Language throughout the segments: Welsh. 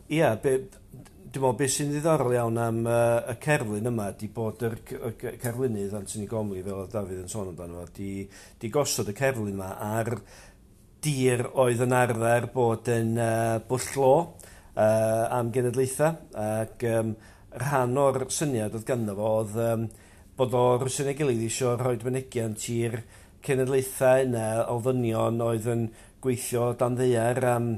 Ia, dwi'n meddwl beth sy'n ddiddorol iawn am y cerflun yma 'di bod yr cerflunydd Antony Gormley, fel oedd Dafydd yn sôn amdano fo, 'di gosod y cerflun yma ar dir oedd yn arfer bod yn bwll glo am genedlaethau, ac rhan o'r syniad oedd ganddo fo oedd bod o rywsut neu gilydd eisiau rhoi mynegiant i'r cenedlaethau yna o ddynion oedd yn gweithio dan ddaear am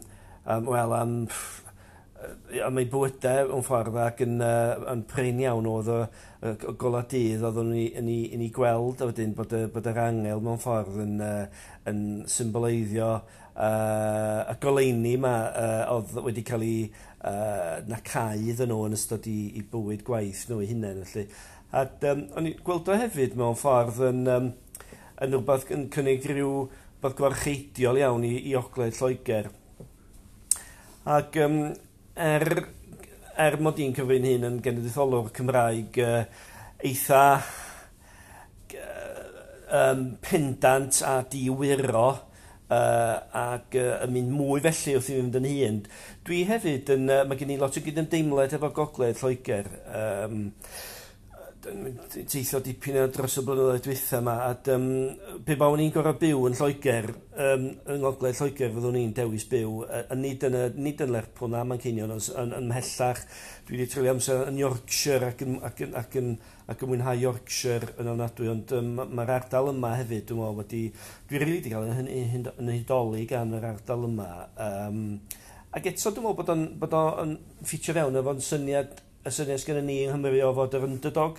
eu bywydau mewn ffordd, ac yn prin iawn oedd y golau dydd oedden nhw'n yn ei gweld, a wedyn bod yr angel mewn ffordd yn symboleiddio y goleuni yma oedd wedi cael ei nacau iddyn nhw yn ystod i bywyd gwaith nhw eu hunain. Felly. A o'n i'n gweld o hefyd mewn ffordd yn rhywbeth yn cynnig rhyw beth gwarcheidiol iawn i Ogledd Lloegr. Ac er mod i'n cyfrin hyn yn genedlaetholwr Cymraeg eitha pendant a diwyro ac yn mynd mwy felly wrth i fi fynd yn hŷn, dwi hefyd yn, mae gen i lot o gydymdeimlad efo Gogledd Lloegr. Teithio dipyn o dros y blynyddoedd dwytha yma, a pe bawn i'n gorfod byw yn Lloegr, yng Ngogledd Lloegr fyddwn i'n dewis byw, nid yn Lerpwl na Manceinion, ond yn mhellach. Dwi wedi treulio amser yn Yorkshire ac yn mwynhau Yorkshire yn ofnadwy, ond mae'r ardal yma hefyd, dwi'n meddwl, dwi rili wedi cael yn hudoli gan yr ardal yma. Ac eto dwi'n meddwl bod o'n ffitio fewn efo'n syniad, y syniad sgynnon ni yng Nghymru o fod yr underdog,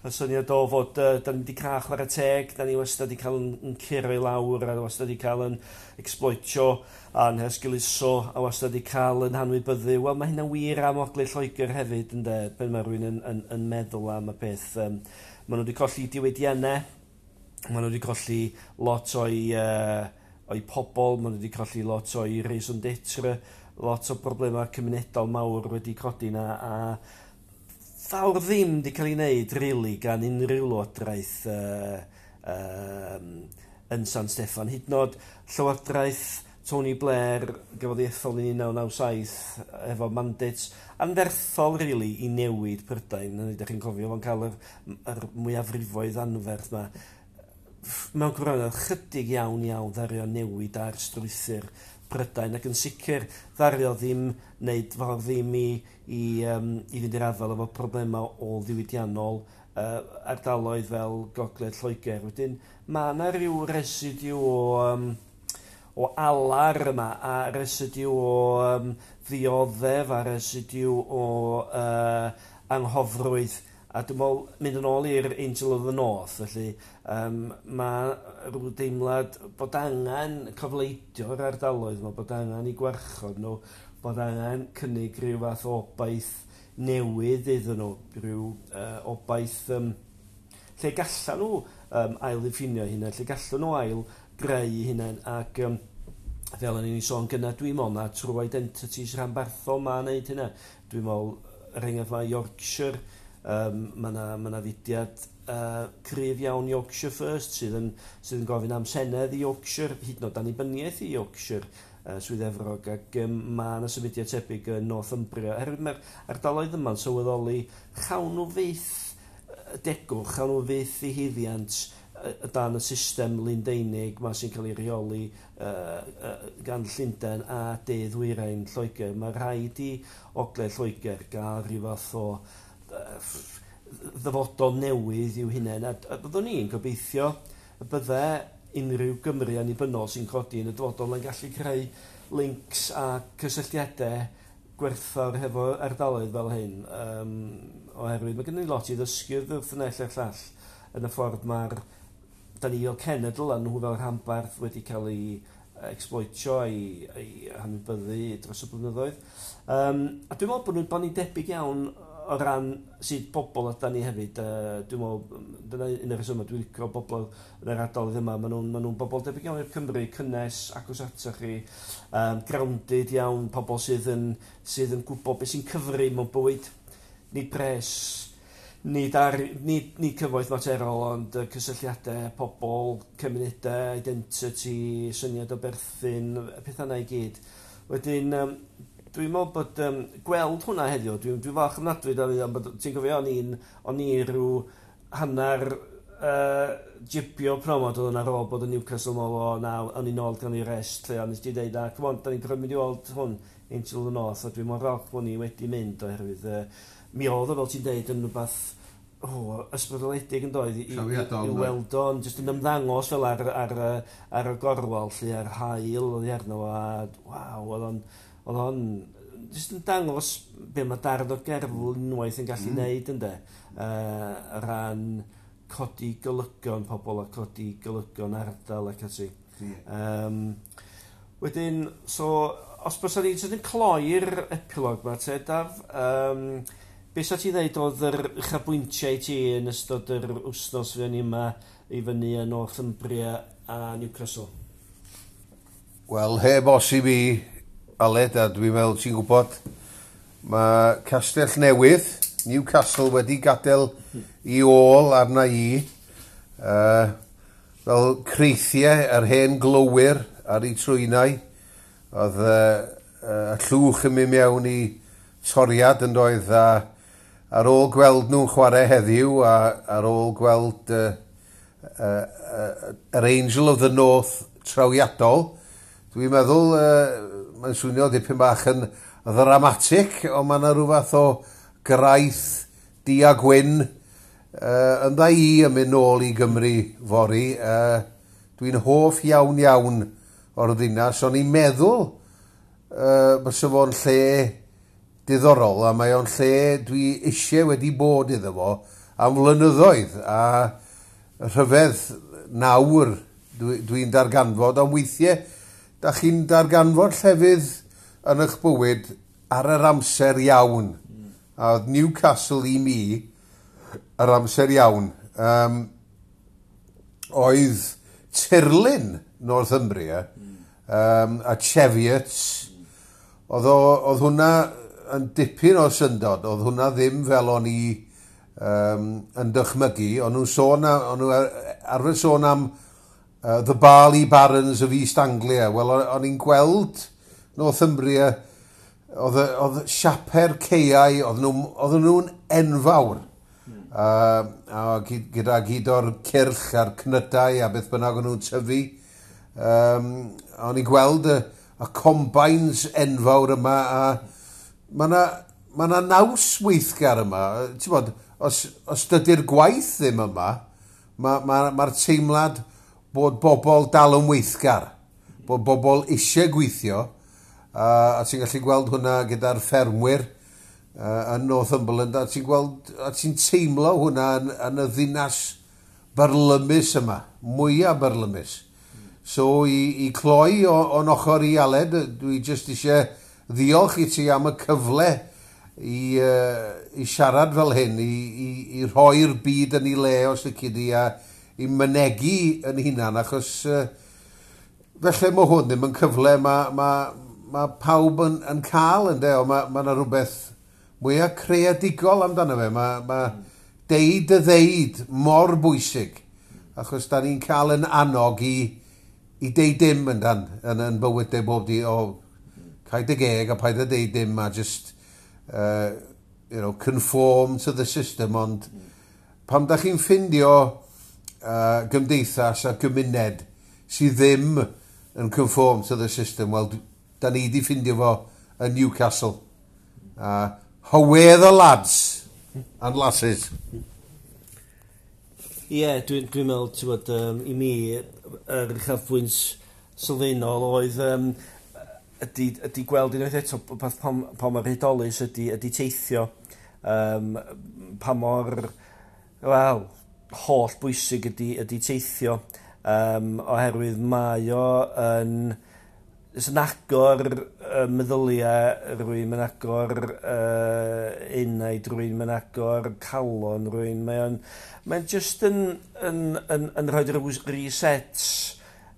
y syniad o fod da ni wedi cael chwarae teg, da ni wastad wedi cael yn curo i lawr, a wastad wedi cael yn exploitio a'n hesgeuluso, a wastad wedi cael yn hanwybyddu. Wel, mae hynna'n wir am Ogledd Lloegr hefyd, ynde, pan mae rhywun yn meddwl am y peth. Maen nhw wedi colli diwydiannau, maen nhw wedi colli lot o'i pobl, maen nhw wedi colli lot o'i raison d'être, lot o broblemau cymunedol mawr wedi codi yna, a fawr ddim wedi cael ei wneud, really, gan unrhyw lywodraeth yn San Steffan. Hyd yn oed llywodraeth Tony Blair gafodd ei ethol yn 1997 efo mandates anferthol, really, i newid Prydain. Ydych chi'n cofio fo'n cael yr mwyafrifoedd anferth yma. Mewn gwirionedd, chydig iawn iawn ddaru o newid ar strwythur Prydain, ac yn sicr ddaru o ddim wneud fawr ddim i fynd i'r afael efo problemau ôl-ddiwydiannol ardaloedd fel Gogledd Lloegr. Wedyn mae yna rhyw residiw o alar yma, a residiw o ddioddef, a residiw o anghofrwydd. A dwi'n meddwl, mynd yn ôl i'r Angel of the North, felly mae rhyw deimlad bod angen cofleidio'r ardaloedd yma, bod angen i gwarchod nhw, bod angen cynnig rhyw fath o obaith newydd iddyn nhw, rhyw obaith lle gallan nhw ail-ddiffinio hynna, lle gallan nhw ail-greu hunain, ac fel o'n i'n sôn gynna, dwi'n meddwl na trwy identities rhanbarthol ma'n neud hynna. Dwi'n meddwl, er enghraifft, mae Yorkshire, mae yna fudiad cryf iawn Yorkshire First sydd yn gofyn am senedd i Yorkshire, hyd yn oed annibyniaeth i Yorkshire, Swydd Efrog, ac mae yna symudiad tebyg yn Northumbria. Oherwydd mae'r ardaloedd yma'n sylweddoli chawn nhw fyth degwch, chawn nhw fyth i haeddiant dan y system Lundeinig ma sy'n cael ei rheoli gan Llundain a De Ddwyrain Lloegr. Mae rhaid i Ogledd Lloegr gael rhyw fath o ddyfodol newydd i'w hunain, a byddwn ni'n gobeithio y bydde unrhyw Gymru annibynnol sy'n codi yn y dyfodol yn gallu creu links a cysylltiadau gwerthfawr hefo ardaloedd fel hyn, oherwydd mae gen ni lot i ddysgu wrth y naill a'r llall yn y ffordd mae'r da ni fel cenedl a nhw fel rhanbarth wedi cael ei exploitio a'i hanwybyddu dros y blynyddoedd. A dwi'n meddwl bod ni'n debyg iawn o ran sut bobl ydan ni hefyd. Dwi'n meddwl, dyna un o'r rhesymau dwi'n licio bobl yn yr ardaloedd yma. Maen nhw'n bobl debyg iawn i'r Cymru, cynnes, agos atoch chi, grounded iawn, pobl sydd yn gwybod beth sy'n cyfri mewn bywyd. Nid pres, nid cyfoeth materol, ond cysylltiadau, pobl, cymunedau, identity, syniad o berthyn, pethau yna i gyd. Wedyn, Dwi'n meddwl bod gweld hwnna heddiw, dwi'n dwi falch ofnadwy, Dafydd, am bod ti'n cofio o'n i rhyw hanner jibio promod oedd yn ar ôl bod yn Newcastle mol o na, o'n i'n ôl gan i rest lle, ond nes ti dweud, na, come on, da ni'n gorfod mynd i weld hwn, Angel of the North, a dwi'n mor falch bod ni wedi mynd oherwydd mi oedd o, fel ti'n dweud, yn rhywbeth ysbrydoledig yn doedd i weld o'n jyst yn ymddangos fel ar y gorwel lle ar haul oedd hi arno fo a waw, oedd o'n jyst yn dangos be mae darn o gerflun unwaith yn gallu neud ynde, ran codi golygon pobl a codi golygon ardal ac ati. Wedyn, so, os bysa ni jyst yn cloi'r epilog ma te, Daf, be sa ti ddeud oedd yr uchafbwyntiau i ti yn ystod yr wythnos fuon ni yma i fyny yn Northumbria a Newcastle? Wel, heb os i fi, Aled, a dwi'n meddwl ti'n gwybod, mae Castell Newydd, Newcastle, wedi gadael i ôl arna i, fel creithiau yr hen glowyr ar eu trwynau. Oedd y llwch yn mynd mewn i toriad yn doedd, a ar ôl gweld nhw'n chwarae heddiw, a ar ôl gweld yr Angel of the North trawiadol, dwi'n meddwl, mae'n swnio dipyn bach yn ddramatig, ond mae yna rhyw fath o graith du a gwyn yn dda i yn mynd nôl i Gymru fory. Dwi'n hoff iawn iawn o'r ddinas. O'n i'n meddwl bysa fo'n lle diddorol, a mae o'n lle dwi eisiau wedi bod iddo fo am flynyddoedd, a rhyfedd nawr dwi'n darganfod, ond weithiau da chi'n darganfod llefydd yn eich bywyd ar yr amser iawn. A oedd Newcastle i mi yr amser iawn. Oedd tirlun Northumbria a Cheviots, oedd hwnna yn dipyn o syndod. Oedd hwnna ddim fel o'n i yn dychmygu. O'n nhw'n sôn, o'n nhw arfer sôn am The Barley Barons of East Anglia. Wel, o'n i'n gweld Northumbria, oedd siape'r caeau, oedd nhw'n enfawr. A gyda gyd o'r cyrch a'r cnydau a beth bynnag o'n nhw'n tyfu. O'n i'n gweld y combines enfawr yma a mae yna ma 'na naws weithgar yma. Ti'n bod, os dydy'r gwaith ddim yma, mae'r ma teimlad bod bobl dal yn weithgar, bod bobl eisiau gweithio, a ti'n gallu gweld hwnna gyda'r ffermwyr yn Northumberland, a ti'n gweld, a ti'n teimlo hwnna yn y ddinas byrlymus yma, mwyaf byrlymus. So i cloi o'n ochr i, Aled, dwi jyst eisiau ddiolch i ti am y cyfle i siarad fel hyn, i rhoi'r byd yn ei le os lici di, a i mynegu yn hunan, achos felly mae hwn ddim yn cyfle ma pawb yn cael yn de, ond ma yna rhywbeth mwyaf creadigol amdano fe. Ma deud y ddeud mor bwysig, achos da ni'n cael yn annog i deud dim yn dan, yn bywydau bob di, o, cau dy geg a paid a deud dim a just conform to the system, ond pam da chi'n ffindio gymdeithas a gymuned sydd ddim yn conform to the system, wel, da ni di ffindio fo yn Newcastle. Howay the lads and lasses. Ie, yeah, dwi'n dwi meddwl, ti'n bod, i mi, yr uchafbwynt sylfaenol oedd ydy gweld unwaith eto beth pa mor hudolus ydy teithio. Pa mor, wel, holl bwysig ydy teithio. Oherwydd mae o yn agor meddyliau rhywun, mae'n agor enaid rhywun, mae'n agor calon rhywun. Mae'n just yn rhoi rhyw reset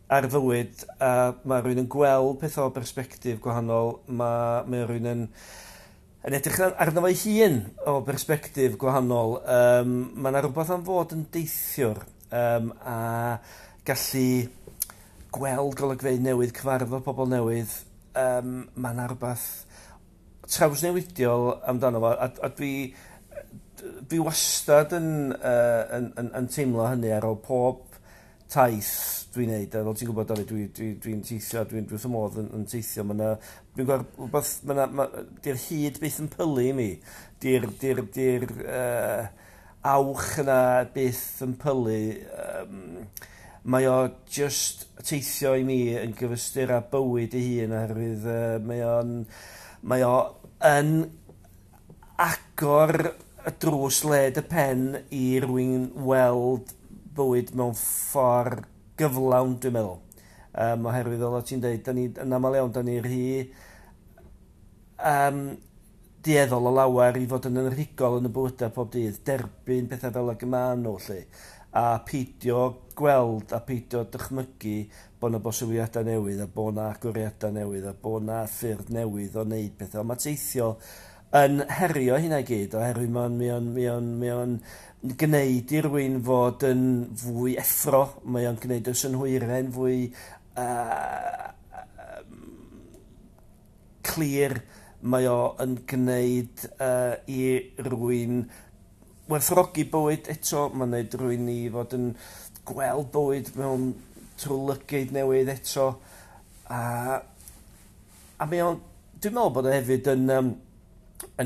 ar fywyd a mae rhywun yn gweld pethau o bersbectif gwahanol, mae rhywun yn edrych arno fo'i hun o bersbectif gwahanol. Mae yna rhywbeth am fod yn deithiwr a gallu gweld golygfeydd newydd, cyfarfod pobl newydd. Mae yna rhywbeth trawsnewidiol amdano fo, a dwi wastad yn teimlo hynny ar ôl pob taith dwi'n neud, a fel ti'n gwybod, Dafydd, dwi'n teithio, dwi'n wrth fy modd yn teithio. Mae 'na, dwi'n gweld rhywbeth, mae 'na, di'r hyd byth yn pylu i mi. Di'r awch yna byth yn pylu. Mae o just teithio i mi yn gyfystyr â bywyd ei hun oherwydd mae o yn agor y drws led y pen i rywun weld bywyd mewn ffordd gyflawn, dwi'n meddwl. Oherwydd fel o ti'n dweud, da ni, yn aml iawn, da ni rhy dueddol o lawer i fod yn rhugol yn y bywydau pob dydd, derbyn pethau fel ag y maen nhw, 'lly, a peidio gweld a peidio dychmygu bod 'na bosibiliadau newydd a bod 'na agoriadau newydd a bod 'na ffyrdd newydd o wneud pethau. Ond mae teithio yn herio hynna i gyd oherwydd mae o'n gwneud i rywun fod yn fwy effro, mae o'n gwneud y synhwyrau'n fwy clir, mae o yn gwneud i rywun werthfawrogi bywyd eto, mae'n gwneud rywun i fod yn gweld bywyd mewn trwy lygaid newydd eto. A mae o'n, dwi'n meddwl bod o hefyd yn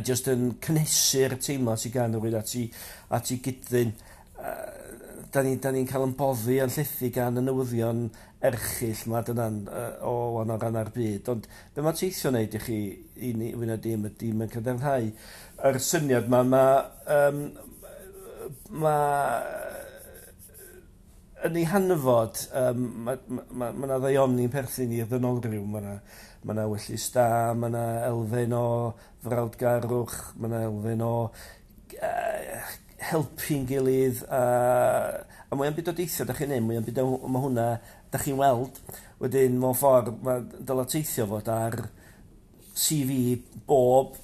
just yn cynhesu'r teimlad sydd gan rywun at ei gyd-ddyn. Da ni'n cael yn boddi a'n llethu gan y newyddion erchyll ma dyna'n o wahanol rannau'r byd. Ond be mae teithio'n neud i chi, i ni, fwy na dim, ydy mae'n cadarnhau yr syniad ma, ma yn ei hanfod, ma 'na ddaioni'n perthyn i'r ddynolryw, ma 'na ewyllys da, ma 'na elfen o frawdgarwch, ma 'na elfen o helpu'n gilydd, a mwy am byd o deithio da chi'n neud, mwy am byd o mae hwnna da chi'n weld. Wedyn, mewn ffordd, mae dyla teithio fod ar CV bob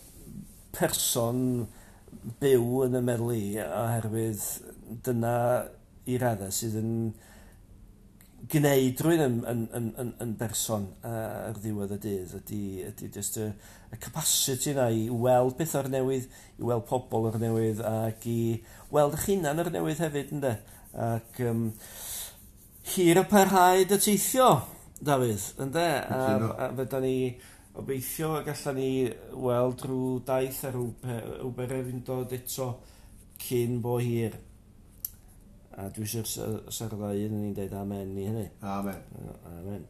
person byw yn y meddwl i, oherwydd dyna i raddau sydd yn gwneud rhywun yn berson ar ddiwedd y dydd ydy just y capacity yna i weld pethau o'r newydd, i weld pobl o'r newydd ac i weld eich hunan o'r newydd hefyd, ynde? Ac hir y parhaed y teithio, Dafydd, ynde? A fydda ni obeithio y gallan ni weld rhyw daith a rhyw bererindod eto cyn bo hir. A dwi eisiau sa'r ddau un ni'n deud amen i hynny. Amen. Amen.